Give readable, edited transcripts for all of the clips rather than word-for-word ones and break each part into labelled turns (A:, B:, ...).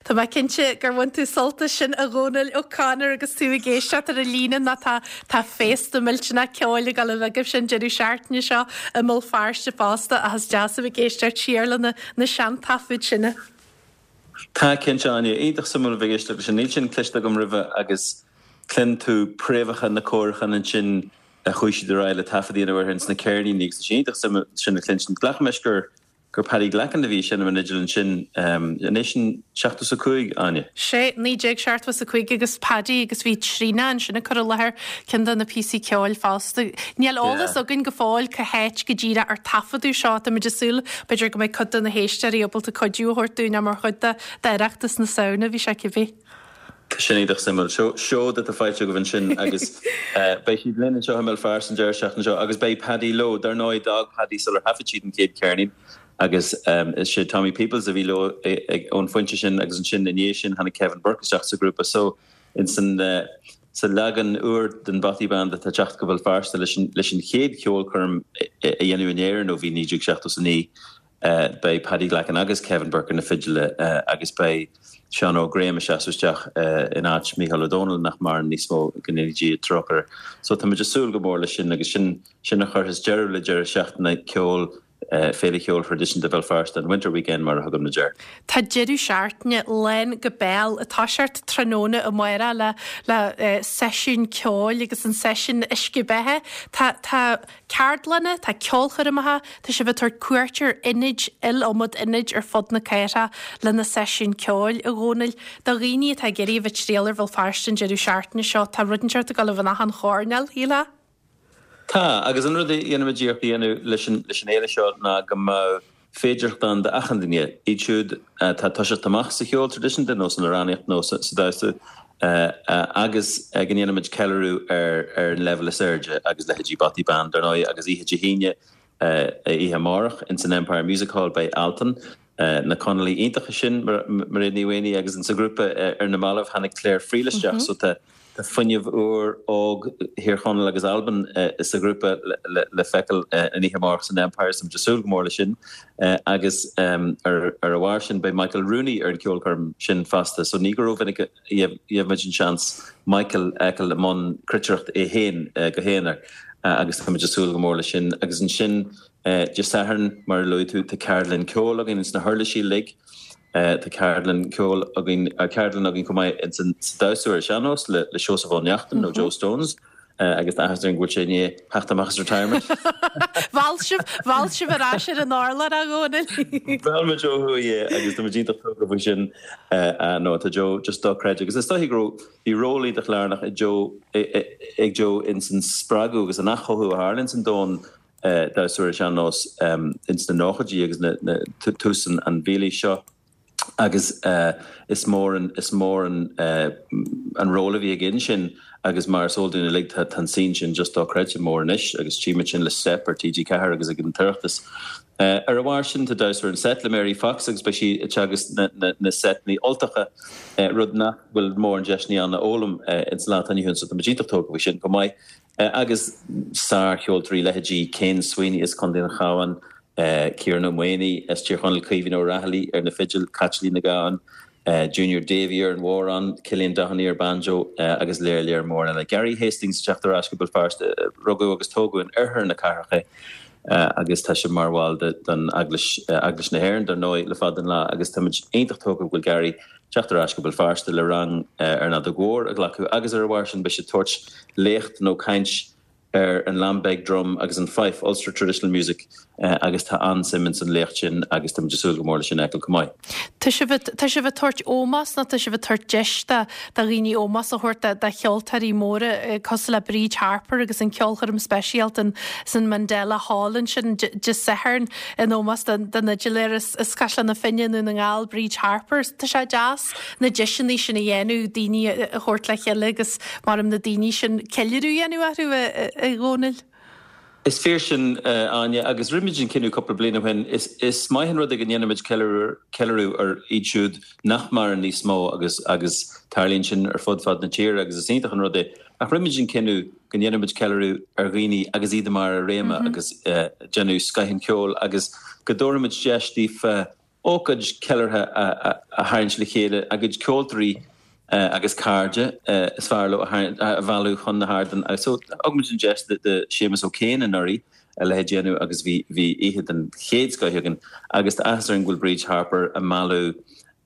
A: Tá mé cinnte gur bhain tú sult as sin a Dhónaill O'Connor agus tú ag éisteacht ar an líne nó tá tá féasta millteanach ceoil ag dul a bheith agaibhse an deireadh seachtaine seo i mBéal Feirste fosta ach is deas a bheith ag éisteacht siar le na na seantaifid sin.
B: Tá, cinnte, Áine. Iontach suimiúil a bheith ag éisteacht leis sin. Níl sin cloiste agam roimhe agus cluin tú préamhacha na cóiriúchán ansin a chuaigh siad ar aghaidh le taifead a dhéanamh orthu ins na ceirníní agus tá sé iontach suimiúil sin a chluinstin. Glacaim leis gur gur Paddy Glackin a bhí ag seinm an fhidil ansin. An é sin 75, Áine?
A: Sé, 1975 agus Paddy agus bhí Tríona ansin ag cur i láthair ceann de na píosaí ceoil fosta. Níl eolas againn go fóill cá háit go díreach ar taifeadadh seo. Táimid ag súil b'fhéidir go mbeidh cuid de na héisteoirí ábalta cuidiú a thabhairt dúinn ach mar chuid d'Oireachtas na Samhna a bhí sé cibé.
B: Tá sin iontach suimiúil. Seo seod atá faighte agaibh ansin agus beidh siad linn anseo i mBéal Feirste an deireadh seachtaine seo agus beidh Paddy leo. Dar ndóigh, d'fhág Paddy sular thaifead siad an chéad cheirnín agus is sé Tommy Peoples a bhí leo ón phointe sin agus ansin i ndiaidh sin tháinig Kevin Burke isteach sa ghrúpa. So ins an sa leagan úr den Bothy Band atá ag teacht go Béal Feirste leis an chéad cheolchoirm a dhéanamh in Éirinn ó bhí 1979. Beidh Paddy Glackin agus Kevin Burke ar na fidile agus beidh Seán Óg Graham ag seasamh isteach in áit Mícheál Ó Domhnaill, nach maireann níos mó, go ndéana Dia trócaire air. So tá muid ag súil go mór leis sin agus sin sin a chuirfeas deireadh le deireadh seachtaine ceoil Féile Cheoil Thraidisiúnta Bhéal Feirste, an Winter Weekend mar a thugaimid air.
A: Tá deireadh seachtaine lán go béal ag toiseacht tráthnóna amárach le le seisiún ceoil agus an seisiún uisce beatha. Tá tá ceardlanna, tá ceolchoirmeacha, tá sibh ag tabhairt cuairt ar ionaid, iliomad ionaid ar fud na cathrach le na seisiúin ceoil, a Dhónaill. Do dhaoine atá ag iarraidh a bheith ag triall ar Bhéal Feirste an deireadh seachtaine seo, tá rud inteacht ag dul a bheith in achan choirnéal, shílfeá?
B: Tá, agus an rud a dhéanaimid iarracht a dhéanamh leis an fhéile seo ná go mbeadh féidearthacht ann d'achan duine, iad siúd atá ag toiseacht amach sa cheol traidisiúnta nó san amhránaíocht nó sa damhsa, agus go ndéanaimid ceiliúradh ar ar an leibhéal is airde agus leithéidí Bothy Band, dar ndóigh, agus oíche Dé hAoine, oíche amárach, ins an Empire Music Hall beidh Altan, na Conallaigh iontacha sin, Mairéad Ní Mhaonaigh agus insa ghrúpa ar na mallaibh tháinig Claire Friel isteach so tá fuinneamh úr, óg Thír Chonaill agus Albain sa ghrúpa le feiceáil an oíche amárach san Empire so táimid ag súil go mór leis sin agus ar a bharr sin beidh Michael Rooney ar an cheolchoirm sin fosta so ní go rómhinic a gheibhimid an seans Michael a fheiceáil i mbun cruitireacht é féin go haonar agus táimid ag súil go mór leis sin agus ansin Dé Sathairn, mar a luaigh tú, tá ceardlann ceoil againn ins na huirlisí uilig. Tá ceardlann ceoil againn, ceardlann againn chomh maith ins an sa damhsa ar an sean-nós le le Seosamh Ó Neachtain nó Joe Stones agus tá áthas orainn go bhfuil sé i ndiaidh theacht amach as retirement.
A: Mheall sibh, mheall sibh ar ais ar an urlár a Dhónaill.
B: Mheall muid ó thuaidh é agus tá muid iontach tógtha faoi sin. No, tá Joe just dochreidte agus is dóichí go raibh, bhí ról iontach lárnach ag Joe, ag Joe ins an spreagadh agus an athchothú a tharla ins an domhan damhsa ar an sean-nós ins na nóchaidí agus tús an mhílaois seo agus is mór an is mór an an ról a bhí aige ansin agus mar is eol dúinn uilig tá an scene sin just dochreidte mór anois agus tchímid sin le Steip ar TG4 agus ag an tOireachtas. Ar a bharr sin tá damhsa ar an seit le Mary Fox agus beidh sí ag teagasc na na na seiteanna Ultacha rud nach bhfuil mórán deiseanna ann a fhoghlaim ins an lá atá inniu ann so tá muid iontach tógtha faoi sin chomh maith. Agus sár-cheoltóirí, leithéidí Ken Sweeney as Contae an Chabháin, Ciarán Ó Maonaigh as Tír Chonaill, Caoimhín Ó Raghallaigh ar na fidil, Caitlín Nic Gabhann, Junior Davey ar an bhodhrán, Cillian Doheny ar banjo agus léar léar mór eile. Gary Hastings ag teacht ar ais go Béal Feirste, rugadh agus tógadh in oirthear na cathrach é agus tá sé mar bhall den Eaglais, Eaglais na hÉireann dar ndóigh, le fada an lá agus táimid iontach tógtha go bhfuil Gary teacht ar ais go Béal Feirste le rang ar an fheadóg mhór a ghlacadh agus ar a bharr sin beidh sé ag tabhairt léacht nó caint ar an Lambeg drum agus an fife, Ulster Traditional Music, agus tá an-suim ins an léacht sin agus táimid ag súil go mór leis sin a fheiceáil chomh maith.
A: Tá sibh ag, tá sibh ag tabhairt ómós nó tá sibh ag tabhairt deis do, do dhaoine ómós a thabhairt do, do cheoltóirí móra cosúil le Bríd Harper agus an ceolchoirm speisialta in, san Mandela Hall ansin Dé Sathairn in ómós don, don fhidiléir as, as Caisleán na Finne i nDún na nGall, Bríd Harper. Tá sé deas na deiseanna sin a dhéanamh, daoine a thabhairt le chéile agus maram na daoine sin ceiliúradh a dhéanamh orthu, a Dhónaill.
B: Is fíor sin, Áine, agus rinne muid an cinneadh cúpla bliain ó shin, is maith an rud é go ndéanaimid ceiliúradh ar iad siúd nach maireann níos mó agus agus tarlaíonn sin ar fud fad na tíre agus is iontach an rud é. Ach rinne muid an cinneadh go ndéanfaimid ceiliúradh ar dhaoine agus iad i mbarr a réime agus déanamh scoith an cheoil agus go dtabharfaimid deis daofa. ócáid ceiliúrtha a tharraingt le chéile, a gcuid ceoltóirí agus cairde is fearr leo a mhealladh chun na hardan. So thug muid an deis do Séamus O'Kane anuraidh a leithéid a dhéanamh agus bhí bhí oíche den chéad scoith againn agus tá áthas orainn go bhfuil Bríd Harper ag mealladh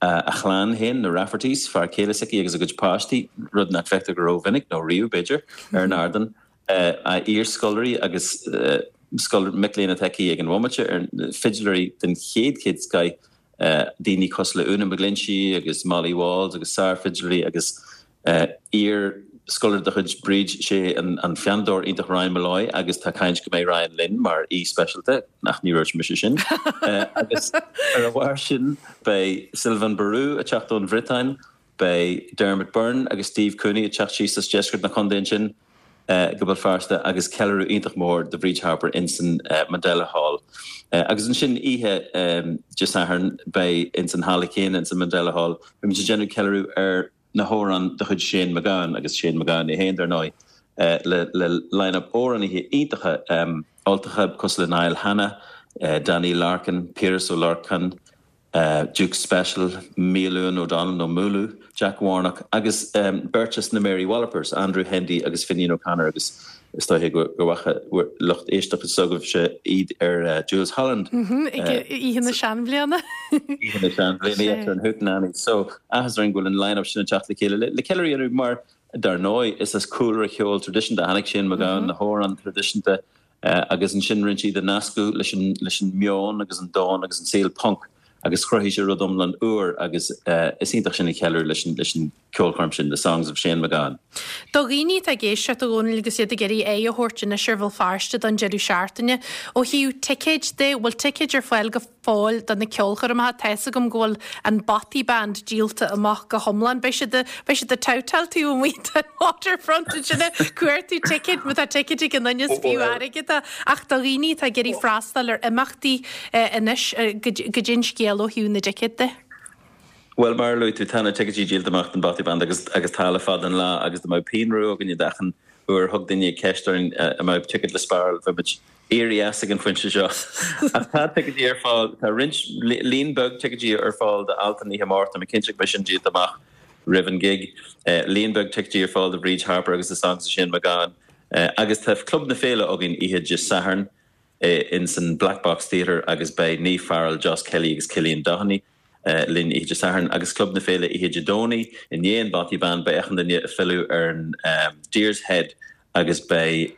B: a chlann féin, na Raffertys, fear céile s'aici agus a gcuid páistí, rud nach bhfeictear go rómhinic, nó riamh b'fhéidir, ar an ardán. A iarscoláirí agus mic léinn atá aici ag an bhomaite, ar fidléirí den chéad chéad scoith, daoine cosúil le Úna McGlinchey agus Molly Walls agus sár-fhidléirí agus iar-scoláire de chuid Bríd, sé an phianódóir iontach Ryan Molloy agus tá caint go mbeidh Ryan linn mar aoi speisialta, ach ní dúirt mise sin. Agus ar a bharr sin beidh Sylvain Barou ag teacht ón Bhriotáin, Beidh Dermot Byrne agus Steve Cooney ag teacht síos as deisceart na contae ansin go Béal Feirste agus ceiliúradh iontach mór do Bhríd Harper insan Mandela Hall. Agus ansin oíche Dé Sathairn beidh insan halla céanna insan Mandela Hall beidh muid ag déanamh ceiliúradh ar na hamhráin de chuid Shane MacGowan agus Shane MacGowan é féin dar ndóigh le le line-up amhránaithe iontacha Ultacha cosúil le Niall Hanna, Danny Larkin, Piaras Ó Lorcáin, Duke Special, Miolúin O'Donnell nó Mooloo, Jack Warnock agus beirt as na Mary Wallopers, Andrew Hendy agus Finian O'Connor agus is dóiche go bhfaca lucht éisteachta s'agaibhse iad ar Jools Holland.
A: Oíche na Seanbhliana.
B: Oíche na Seanbhliana, yeah, ar an Hootenanny. So, áthas orainn go bhfuil an line-up sin ag teacht le chéile le ceiliúradh a dhéanamh mar, dar ndóigh, is as cúlra cheol traidisiúnta a tháinig Shane MacGowan, na hamhráin traidisiúnta, Agus ansin rinne sé iad a nascadh leis an leis an meon agus an domhan agus an saol punk agus chruthaigh sé rud iomlán úr agus is iontach sin a cheiliúradh leis an leis an ceolchoirm sin, The Songs of Shane MacGowan.
A: Do dhaoine atá ag éisteacht, a Dhónaill, agus iad ag iarraidh aghaidh a thabhairt anois ar Bhéal Feirste don deireadh seachtaine, ó thaobh ticéid de, bhfuil ticéid ar fáil go fóill do na ceolchoirmeacha. Tá fhios agam go bhfuil an Bothy Band díolta amach go hiomlán. Beidh siad beidh siad ag babhtáil taobh amuigh den Waterfront ansin ag cuartú ticéid má tá ticéid ag an duine is fiú airgead é. Ach do dhaoine atá ag iarraidh freastal ar imeachtaí anois, goidé an scéal ó thaobh na dticéad de.
B: Bhuel, mar a luaigh tú, tá na ticéidí díolta amach don Bothy Band agus agus tá le fada an lá agus dá mbeadh pingin rua againne d'achan uair a thug duine ceist orainn an mbeadh ticéad le spáráil, bheadh muid éirithe as ag an phointe seo. Ach tá ticéidí ar fáil, tá roinnt, líon beag ticéidí ar fáil do Altan oíche amárach, tá mé cinnte go mbeidh sin díolta amach roimh an gig. Líon beag ticéidí ar fáil do Bhríd Harper agus The Songs of Shane MacGowan. Agus tá Club na Féile againn oíche Dé Sathairn ins an Black Box Theatre agus beidh Niamh Farrell, Joss Kelly agus Cillian Doheny linn oíche Dé Sathairn agus Club na Féile oíche Dé Domhnaigh i ndiaidh an Bothy Band beidh achan duine ag filleadh ar an Deer's Head agus beidh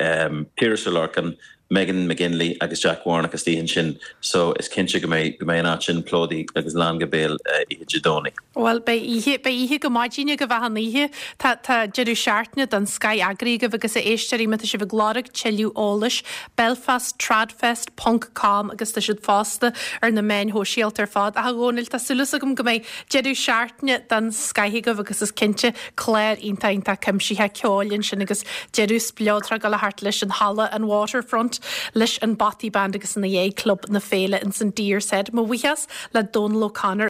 B: Piaras Ó Lorcáin, Megan McGinley agus Jack Warnock istigh ansin so is cinnte go mbeidh go mbeidh an áit sin plódaithe agus lán go béal oíche Dé Domhnaigh.
A: Bhuel beidh oíche, beidh oíche go maidin agaibh achan oíche. Tá, tá deireadh seachtaine den scoith eagraithe agaibh agus a éisteoirí má tá sibh ag lorg tuilleadh eolais, belfasttradfest ponc com agus tá siad fosta ar na meáin shóisialta ar fad. Ach a Dhónaill, tá súil agam go mbeidh deireadh seachtaine den scoith agaibh agus is cinnte clár iontach iontach cuimsitheach ceoil ansin agus deireadh spleodrach ag dul thart leis an halla, an Waterfront, leis an Bothy Band agus ina dhiaidh Club na Féile ins an Deer's Head. Mo bhuíochas le Dónal O'Connor.